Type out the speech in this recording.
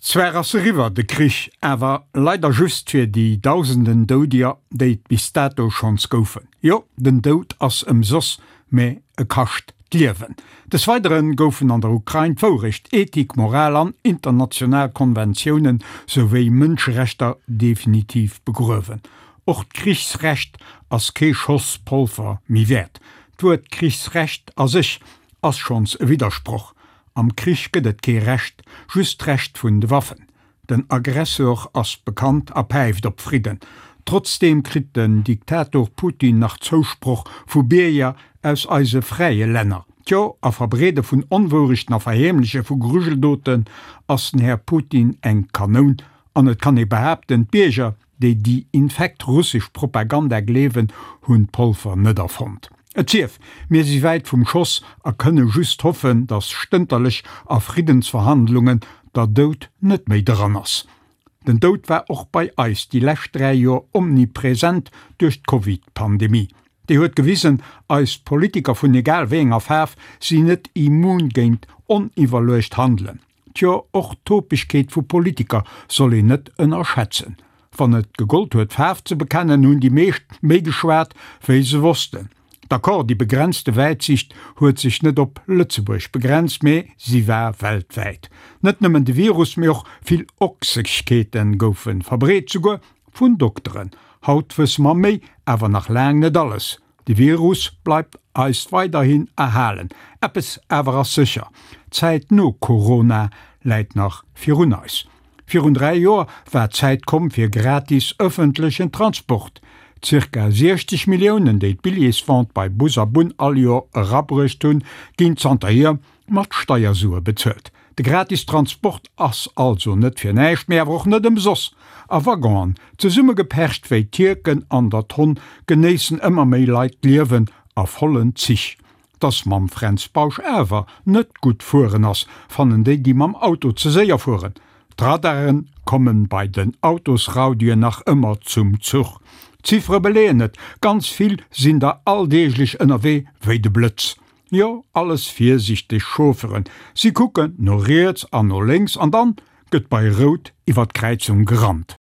Zwar ass eriwwer, de Krich, awer leider just fir déi dausenden Doudeger, déi et bis dato schonns goufen. Jo, den Doud ass ëmsoss, mä e kascht d'Liewen. Des Weidere goufen an der Ukrain d'Wourecht, Ethik, Moral an international Konventiounen souwéi Mënscherechter definitiv begruewen. Och d'Krichsrecht ass kee Schoss Polver méi wäert. D'Wuert Krichsrecht a sech ass schonns e Widdersproch. Am Krich gëtt et kee Recht, just d'Recht vun de Waffen. Den Aggressor ass bekannt a päift op Fridden. Trotzdeem kritt den Diktator Putin nach Zousproch vu Bierger aus eise fräie Länner. Tjo, a Verbreede vun Onwourechten a Verheemleche vu Grujeldoten ass den Här Putin eng Kanoun. An et kann ee behaapten, d'Bierger déi déi infekt russesch Propaganda gleewen, hunn d'Polver net erfonnt. Et sief, mir si wäit vum Schoss a kënne just hoffen, datt stënterlech a Friddensverhandlungen der Doud net méi dran ass. Den Doud war och bei eis déi lescht 3 Joer omnipresent duerch d'Covid-Pandemie. Déi huet gewisen, eis Politiker vun egal wéi enger Faarf sinn net immun géint oniwwerluecht Handelen. Tjo, och d'Topegkeet vu Politiker soll een net ënnerschätzen. Wann et gegollt huet Faarf ze bekennen, hunn déi meescht méi geschwat, wéi se wossten. D'accord, déi begrenzte Wäitsicht huet sech net op Lëtzebuerg begrenzt, mee si war weltwäit. Net nëmmen de Virus, mee och vill Ochsegkeete goufe verbreet, souguer vun Dokteren. Haut wësse mer méi, awer nach laang net alles. De Virus bleift eis weiderhin erhalen. Eppes awer ass sécher, D'Zäit no Corona läit nach virun eis. Virun 3 Joer war d'Zäit komm fir gratis ëffentlechen Transport. Zirka 60 Milliounen, déi d'Billjeesvente bei Bus a Bunn all Joer erabruecht hunn, ginn zanterhier mat Steiersue bezuelt. De gratis Transport ass also net fir näischt, mee awer och net ëmsoss. A Waggonen, zesummegepercht wéi Tierken an der Tonn, genéissen ëmmer méi Leit d'Liewen a vollen Zich. Dass mam Fränz Bausch awer net gutt fueren ass, fannen déi, déi mam Auto ze séier fueren. D'Radaren kommen bei den Autosraudien nach ëmmer zum Zuch. D'Ziffere beleeën et, ganz vill sinn der alldeeglech ënnerwee wéi de Blëtz. Jo, alles virsichteg Chaufferen, si kucken no riets an no lénks an dann gëtt bei Rout iwwer d'Kräizung gerannt.